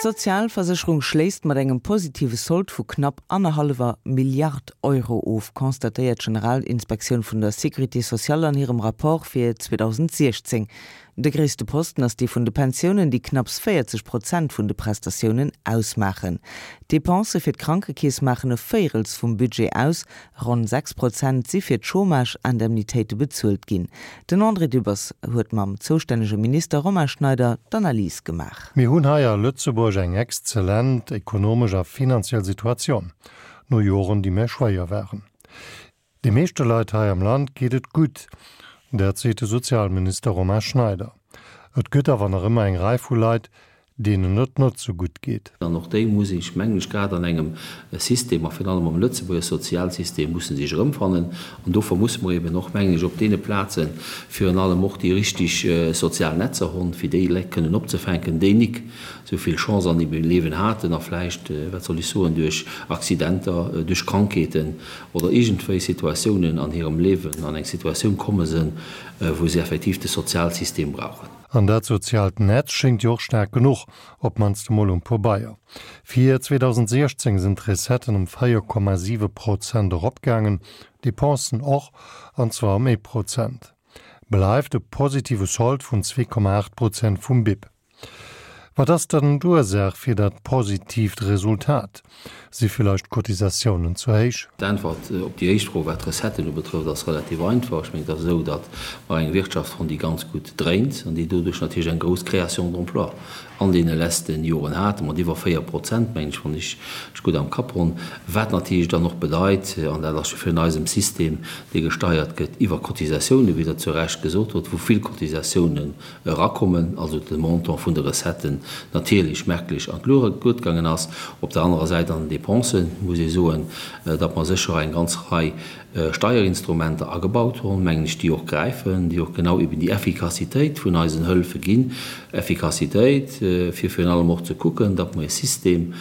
D'Sozialversécherung schléisst mat engem positive Sold vu knapp annerhallwer Milliard Euro of, constatéiert d'Generalinspektioun vun der Sécurité sociale an hirem Rapport fir 2016. De gréisste Posten ass dee vun de Pensiounen, déi knapps 40 Prozent vun de Prestatiounen ausmaachen. D'Depensë fir d'Krankekeess maachen e Véirels vum Budget aus, Ronn 6 Prozent si fir d'Chômage-Indemnitéite bezuelt ginn. Den André Dübbers huet mam zoustännege Minister Romain Schneider d'Analys gemaach. Mir hunn hei a Lëtzebuerg eng exzellent ekonomesch a finanziell Situatioun, no Joren, déi méi schwéier waren. De meeschte Leit hei am Land geet et gutt, dat seet de Sozialminister Romain Schneider. Et gëtt awer nach ëmmer eng Rei vu Leit, deenen et net sou gutt geet. An och déi muss ech, mengen ech, grad an engem System, a virun allem am Lëtzebuerger Sozialsystem, musse sech erëmfannen. An dofir musse mer eben och, mengen ech, op deene Plaze virun allem och déi richtig sozial Netzer honn, fir déi Leit kënnen opzefänken, déi nik esou vill Chance an hirem Liewen haten a vläicht, wat soll ech soen, duerch Accidenter, duerch Krankheeten oder iergendwéi Situatiounen an hirem Liewen an eng Situatioun komme sënn, wou se effektiv de Sozialsystem brauchen. An dat soziaalt Netz schéngt jo och staark genuch, op d'mannst emol um Pobeier. Fir 2016 sinn d'Recetten ëm 4,7 Prozent eropgaangen, d'Depensen och, an zwar ëm ee Prozent. Bleift e positive Sold vun 2,8 Prozent vum BIP. Wat ass dann d'Ursaach fir dat positiivt Resultat? Si villäicht d'Cotisatiounen ze héich? D'Äntwert op déi éischt Fro, wat d'Recetten ubetrëfft, ass relativ einfach. Ech mengen, et ass esou, datt mer eng Wirtschaft hunn, déi ganz gutt dréint an déi doduerch natierlech eng grouss Création d'emplois an deene letzte Joren hat, mat iwwer 4 Prozent, mengen ech, wann ech mech gutt am Kapp hunn, wat natierlech dann och bedeit, an dat ass jo virun eisem System, dee gesteiert gëtt iwwer Cotisatiounen, wéi Der zu Recht gesot hutt, wou vill Cotisatiounen erakommen, also de Montant vun de Recetten natierlech merklech an d'Luucht gaangen ass. Op der anerer Säit an den Dépensen muss ee soen, datt mer sécher eng ganz Rei Steierinstrumenter agebaut hunn, mengen ech, déi och gräifen, déi och genau eben déi Effikassitéit vun eisen Hëlfe ginn, Effikassitéit, fir virun allem och ze kucken, datt mer e System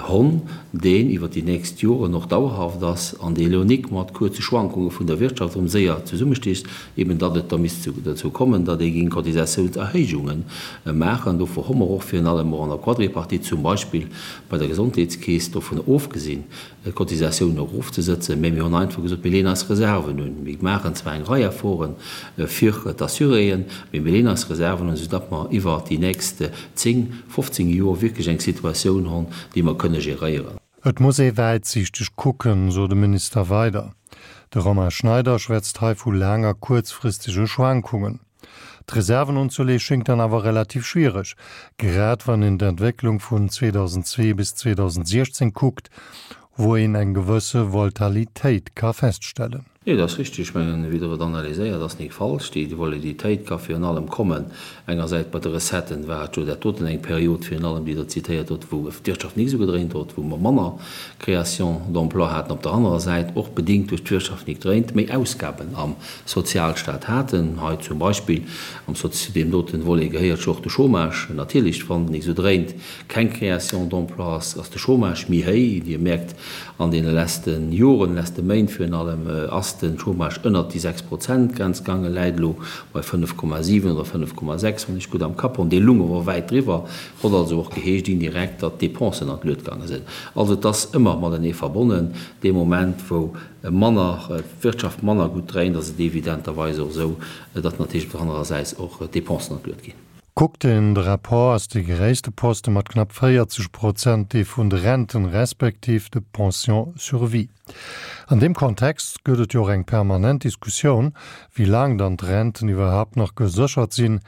Honn, deen iwwer déi nächst Joren och dauerhaft ass an dee elo nik mat kuerze Schwankunge vun der Wirtschaft erëm séier zesummesticht, eben datt et da misst dozou kommen, datt ee géing Cotisatiounserhéijunge maachen. Dofir hu mer och virun allem och an der Quadripartite zum Beispill bei der Gesondheetskeess dovun ofgesinn, d'Cotisatiounen erofzesëtzen, mä mir hunn einfach gesot, mir leeën eis Reserven un. Mir maachen zwar eng Rei Efforte fir d'Assuréen, mä mir leeën eis Reserven un, soudatt mer iwwer déi nächst 10, 15 Joer wierklech eng Situatioun honn, déi mer kënne geréieren. Et muss ee wäitsiichteg kucken, sot de Minister weider. De Romain Schneider schwätzt hei vu laang a kuerzfristege Schwankungen. D'Reserven unzeleeë schéngt dann awer relativ schwiereg, grad wann een d'Entwécklung vun 2002 bis 2016 kuckt, wou een eng gewësse Voltalitéit ka feststellen. Nee, dat ass richtig. Ech mengen, wéi Der et analyséiert, ass nik falsch. Déi Voliditéit ka virun allem kommen, engersäits bei de Recetten war et jo dat doten eng Period virun allem, déi Der zitéiert hutt, wou d'Wirtschaft nik esou gedréint huet, wou mer manner Création d'emplois haten, op der anerer Säit och bedingt duerch d'Wirtschaft nik dréint, méi Ausgaben am Sozialstat haten. Hei zum Beispill am Sozi-, deem doten Volet gehéiert jo och de Chômage natierlech, wann nik esou dréint, keng Création d'emplois ass, ass de Chômage méi héi. Dir mierkt, An deene leschte Joren, leschte Méint virun allem, ass de Chômage ënnert déi 6 Prozent Grenz gaangen, läit elo bei 5,7 oder 5,6, wann ech gutt am Kapp hunn. Dee lung awer wäit driwwer, hott also och geheescht indirekt, datt d'Dépensen an d'Luet gaange sinn. Also et ass ëmmer matenee verbonnen. Dee Moment, wou manner, d'Wirtschaft manner gutt dréint, ass et evidenterweis och esou, datt natierlech op der anerer Säit och d'Dépensen an d'Luet ginn. Kuckt een de Rapport, ass dee gréisste Poste mat knapp 40 Prozent dee vun de Renten, respektiv de Pensions sur vie. An deem Kontext gëtt et jo och eng permanent Diskussioun, wéi laang dann d'Renten iwwerhaapt nach geséchert sinn,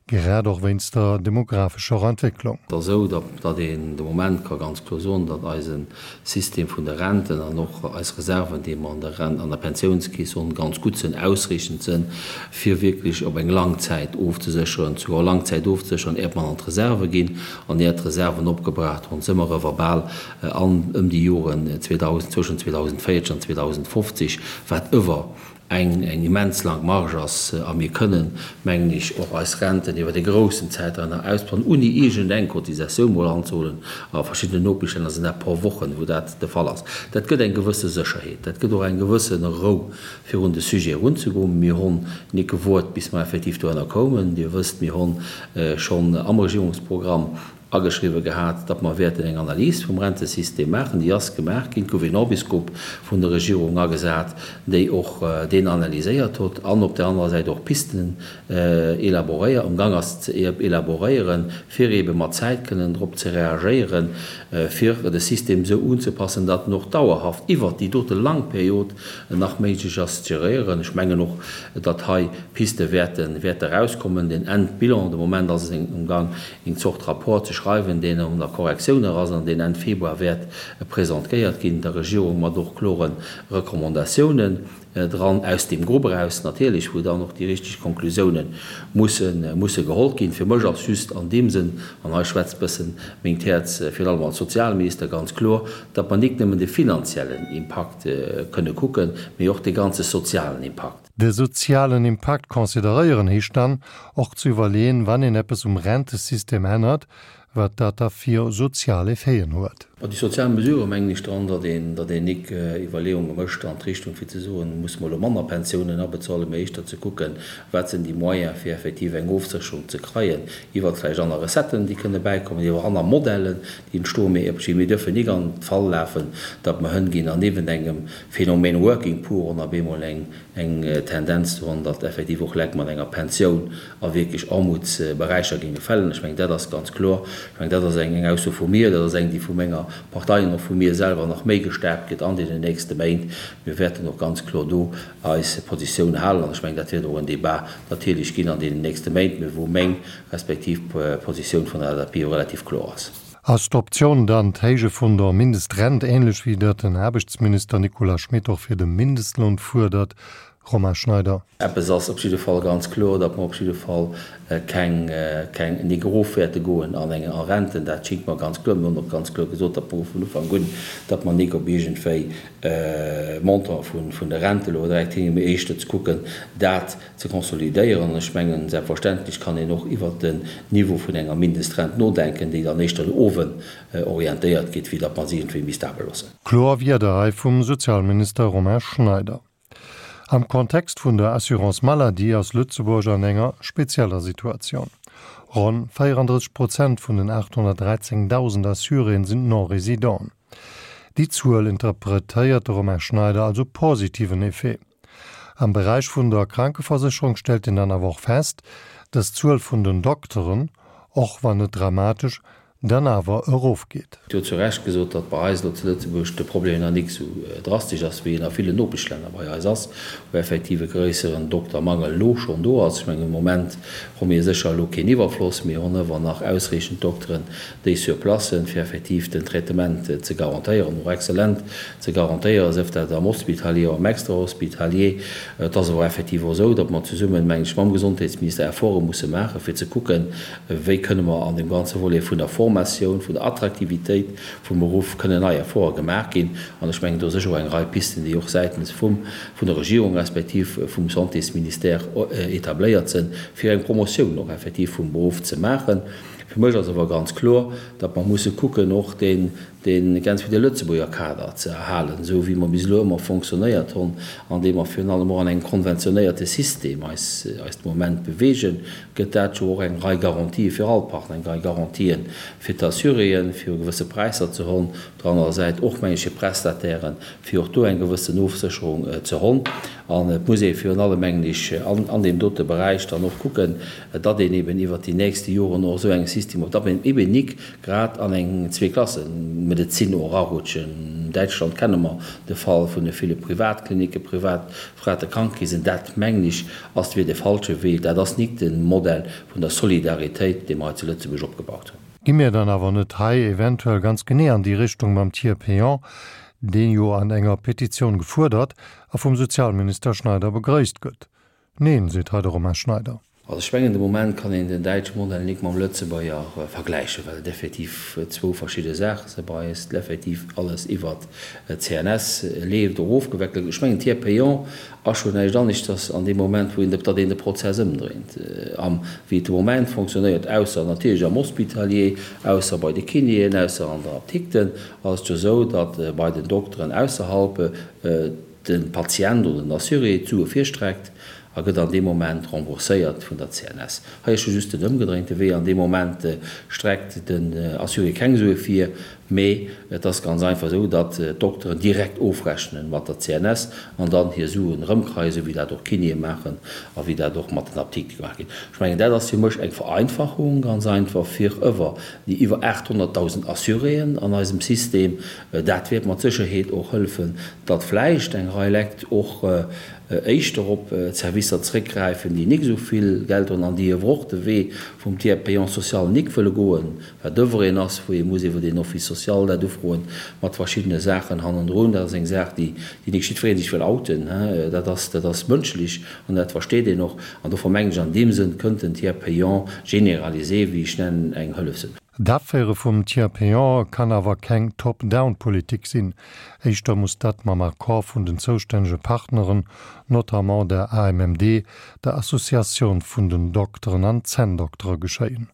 grad och wéinst der demographescher Entwécklung. Et ass esou, datt een de Moment ka ganz kloer soen, datt eise System vun de Renten an och eis Reserven, déi mer an der Rent, an der Pensiounskeess hunn, ganz gutt sinn, ausreechend sinn, fir wierklech op eng lang Zäit ofzesécheren, souguer lang Zäit ofzesécheren, äert mer an d'Reserve ginn an äert d'Reserven opgebraucht hunn, si mer ewer bal an ëm déi Joren 2000, zwëschen 2040 an 2050, wat ewer eng eng immens laang Marge ass a mir kënnen, mengen ech, och eis Renten iwwert e groussen Zäitraum nach ausbauen, ouni iergend eng Cotisatioun mol anzehuelen. A verschiddenen Nopeschlänner sinn dat pro Wochen, wou dat de Fall ass. Dat gëtt eng gewësse Sécherheet, dat gëtt och eng gewësse Rou, fir un de Sujet erunzegoen. Mir honn nik gewuart, bis mer effektiv dohinner koumen. Dir wësst, mir honn schonn am Regierungsprogramm. Ageschriwwe gehat, datt mer wäerten eng Analys vum Rentesystem maachen. Déi ass gemaach ginn. Et gouf een Orbisgrupp vun der Regierung agesat, déi och deen analyséiert hott an op där anerer Säit och Pisten élaboréiert, am Gang ass ze élaboréieren, fir eebe mat Zäit kënnen drop ze reagéieren, fir de System esou unzepassen, datt en och dauerhaft iwwert déi dote lang Period nach méiglech ass ze geréieren. Ech mengen och, datt hei Piste wäerte wäerte erauskommen. Den Endbilan, de Moment ass en um Gang, eng Zort Rapport ze schreiwen, deen an der Korrektioun nach ass an deen Enn Februar wäert presentéiert ginn der Regierung mat och klore Recommandatiounen dran, aus deem Grupp eraus natierlech, wou dann och déi richteg Konklusiounen musse musse geholl ginn. Fir mech ass just an deem Sënn, an hei schwätzt bëssen mengt Häerz, virun allem als Sozialminister, ganz kloer, datt mer nik nëmmen de finanziellen Impakt kënne kucken, mee och de ganze sozialen Impakt. De sozialen Impakt consideréieren heescht dann och ze iwwerleeën, wann een eppes um Rentesystem ännert, wat dat da fir sozial Effeten huet. Bei déi sozial Mesurë mengen ech dran, datt een, datt een nik Iwwerleeunge mécht an d'Richtung fir ze soen, musse mer elo manner Pensiounen abezuelen, mä éischter ze kucken, wat sinn déi Moyens fir effektiv eng Ofsécherung ze kreien iwwert vläicht aner Recetten, déi kënne bäikommen, iwwer aner Modellen, déi entstoen. Mee mir dürfen nik an d'Fal lafen, datt mer hënginn an niewent engem Phänomen Working Poor on op eemol eng eng Tendenz do hunn, datt effektiv och Leit mat enger Pensioun a wierklech Aarmutsberäicher géinge fällen. Ech mengen, dat ass ganz kloer. Ech mengen, dat ass eng eng Ausso vu mir, dat ass eng, déi vu menger Partei an och vu mir selwer nach méi gestärkt gëtt an deenen nächste Méint. Mir wäerten och ganz kloer do eis Positioun halen an ech mengen, dat wäert och en Débat natierlech ginn an deenen nächste Méint, mä wou meng respektiv d'Positioun vun der LSAP jo relativ kloer ass. Ass d'Optioun dann d'Héije vun der Mindestrent, ähnlech wéi dat den Aarbechtsminister Nicolas Schmit och fir de Mindestloun fuerdert? Romain Schneider. Eppes ass op jidde Fall ganz kloer, datt mer op jidde Fall keng, keng, nik erof wäerte goen an eng a Renten. Dat schingt mer ganz kloer. Mir hunn och ganz kloer gesot, datt mer vun Ufank un, datt mer nik op iergendwéi Montant vun, vun de Rente elo direkt hinginn, mee éischter ze kucken, dat ze konsolidéieren. An ech mengen, selbstverständlech kann een och iwwert den Niveau vun enger Mindestrent nodenken, déi dann éischter no owen orientéiert gétt, wéi datt mer se iergendwéi misst abe loossen. Kloer Wierder hei vum Sozialminister Romain Schneider. Am Kontext vun der Assurance maladie ass Lëtzebuerg an enger spezieller Situatioun. Ronn 34 Prozent vun den 813.000 Assuréen sinn Non-Résidenten. Déi Zuel interpretéiert de Romain Schneider als e positiven Effet. Am Beräich vun der Krankeversécherung stellt een dann awer och fest, dass d'Zuel vun den Dokteren, och wann net dramatesch, dann awer erofgeet. Dir hutt zu Recht gesot, datt bei eis elo zu Lëtzebuerg de Problem nach nik esou drastesch ass, wéi en a villen Nopeschlänner bei eis ass, wou effektiv e gréisseren Doktermangel elo schonn do ass. Ech mengen, um Moment hu mir sécher elo keen Iwwerfloss, mir hunn ëwer nach ausreechend Dokteren, déi sur place sinn, fir effektiv den Traitement ze garantéieren, och exzellent ze garantéieren, sief dat am Hospitalier oder am Extrahospitalier. Et ass awer effektiv och esou, datt mer zesummen, mengen ech, mam Gesondheetsministère Efforte musse maachen, fir ze kucken, wéi kënne mer an deem ganze Volet vun der Formatioun, vun der Attraktivitéit vum Beruff kënnen nei Efforte gemaach ginn. An ech mengen, do sécher och eng Rei Pisten, déi och säitens vum, vun der Regierung respektiv vum Santésministère etabléiert sinn, fir eng Promotioun och effektiv vum Beruff ze maachen. Fir mech ass awer ganz kloer, datt mer musse kucken, och deen, dee ganz wéi de Lëtzebuerger Kader ze erhalen, esou wéi mer bis elo ëmmer fonctionnéiert honn, andeem mer virun allem och an engem konventionéierte System eis, eis de Moment bewegen, gëtt dat jo och eng Rei Garantië fir all Partner, eng Rei Garantien fir d'Assuréen, fir gewësse Präisser ze honn, op der anerer Säit och, meng ech, fir d'Prestatairen, fir och do eng gewëssen Ofsécherung ze honn. An et muss ee virun allem, mengen ech, an deem dote Beräich dann och kucken, datt een eben iwwert déi nächste Joren och esou engem System op, datt een eben nik grad an eng Zweeklassemedezin och erarutschen. An Däitschland kenne mer de Fall vun de ville Privatklinicken, privat frate Krankekeesen. Dat, mengen ech, ass wier de falsche Wee. Dat ass nik de Modell vun der Solidaritéit, dee mer hei zu Lëtzebuerg opgebaut hunn. Gi mir dann awer net hei eventuell ganz genee an déi Richtung mam Tiers payant, deen jo an enger Petitioun gefuerdert a vum Sozialminister Schneider begrëisst gëtt? Neen, seet hei de Romain Schneider. Also ech mengen, de Moment kann een den däitsche Modell nik mam Lëtzebuerger vergläichen, well et effektiv zwou verschidde Saache sinn. Bei eis effektiv alles iwwert d'CNS leeft, och ofgeweckelt gëtt. Ech mengen, Tiers payant ass scho näischt aneschters an deem Moment, wou een, datt een de Prozess ëmdréint, am wéi et de Moment fonctionnéiert, ausser natierlech am Hospitalier, ausser bei de Kinéen, ausser an der Apdikten, ass et jo esou, datt bei den Dokteren ausserhalb, de Patient oder den Assuré d'Sue virstreckt. A gëtt an deem Moment rembourséiert vun der CNS. Hei ass jo just den ëmgedréinte Wee, an deem Moment streckt den Assuré keng Sue vir, mee et ass ganz einfach esou, datt d'Dokteren direkt ofrechne mat der CNS an dann hir Suen erëmkreien, esou wéi dat och d'Kinéë maachen a wéi dat och mat den Apdikte gemaach ginn. Ech mengen, dat ass fir mech eng Vereinfachung, ganz einfach, fir ëwer déi iwwer 800.000 Assuréen an eisem System. Dat wäert mat Sécherheet och hëllefen, datt vläicht eng Rei Lekt och éischter op Servicer zréckgräifen, déi nik esou vill Geld hunn an déi ewer och de Wee vum Tiers payant social nik wëlle goen, wat ewer een ass, wou ee muss iwwer een Office social dat ufroen, mat verschiddene Saachen hannendrun. Dat ass eng Saach, déi nik jiddweree sech wëll outen. Dat ass, dat ass mënschlech an dat versteet een och. An dofir mengen ech, an deem Sënn kënnt den Tiers payant généralisé, wéi ech nennen, eng Hëllef sinn. D'Aféiere vum Tiers payant kann awer keng Top-down-Politik sinn. Éischter muss dat mam Accord vun den zoustännege Partneren, notamment der AMMD, der Associatioun vun den Dokteren an Zänndoktere geschéien.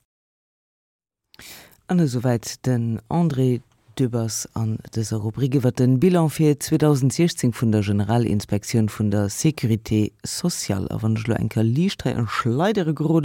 An esouwäit den André Dübbers an dëser Rubrik iwwer den Bilan fir 2016 vun der Generalinspektioun vun der Sécurité sociale. A wann ech elo eng Kéier liicht hei an Schleidere gerode.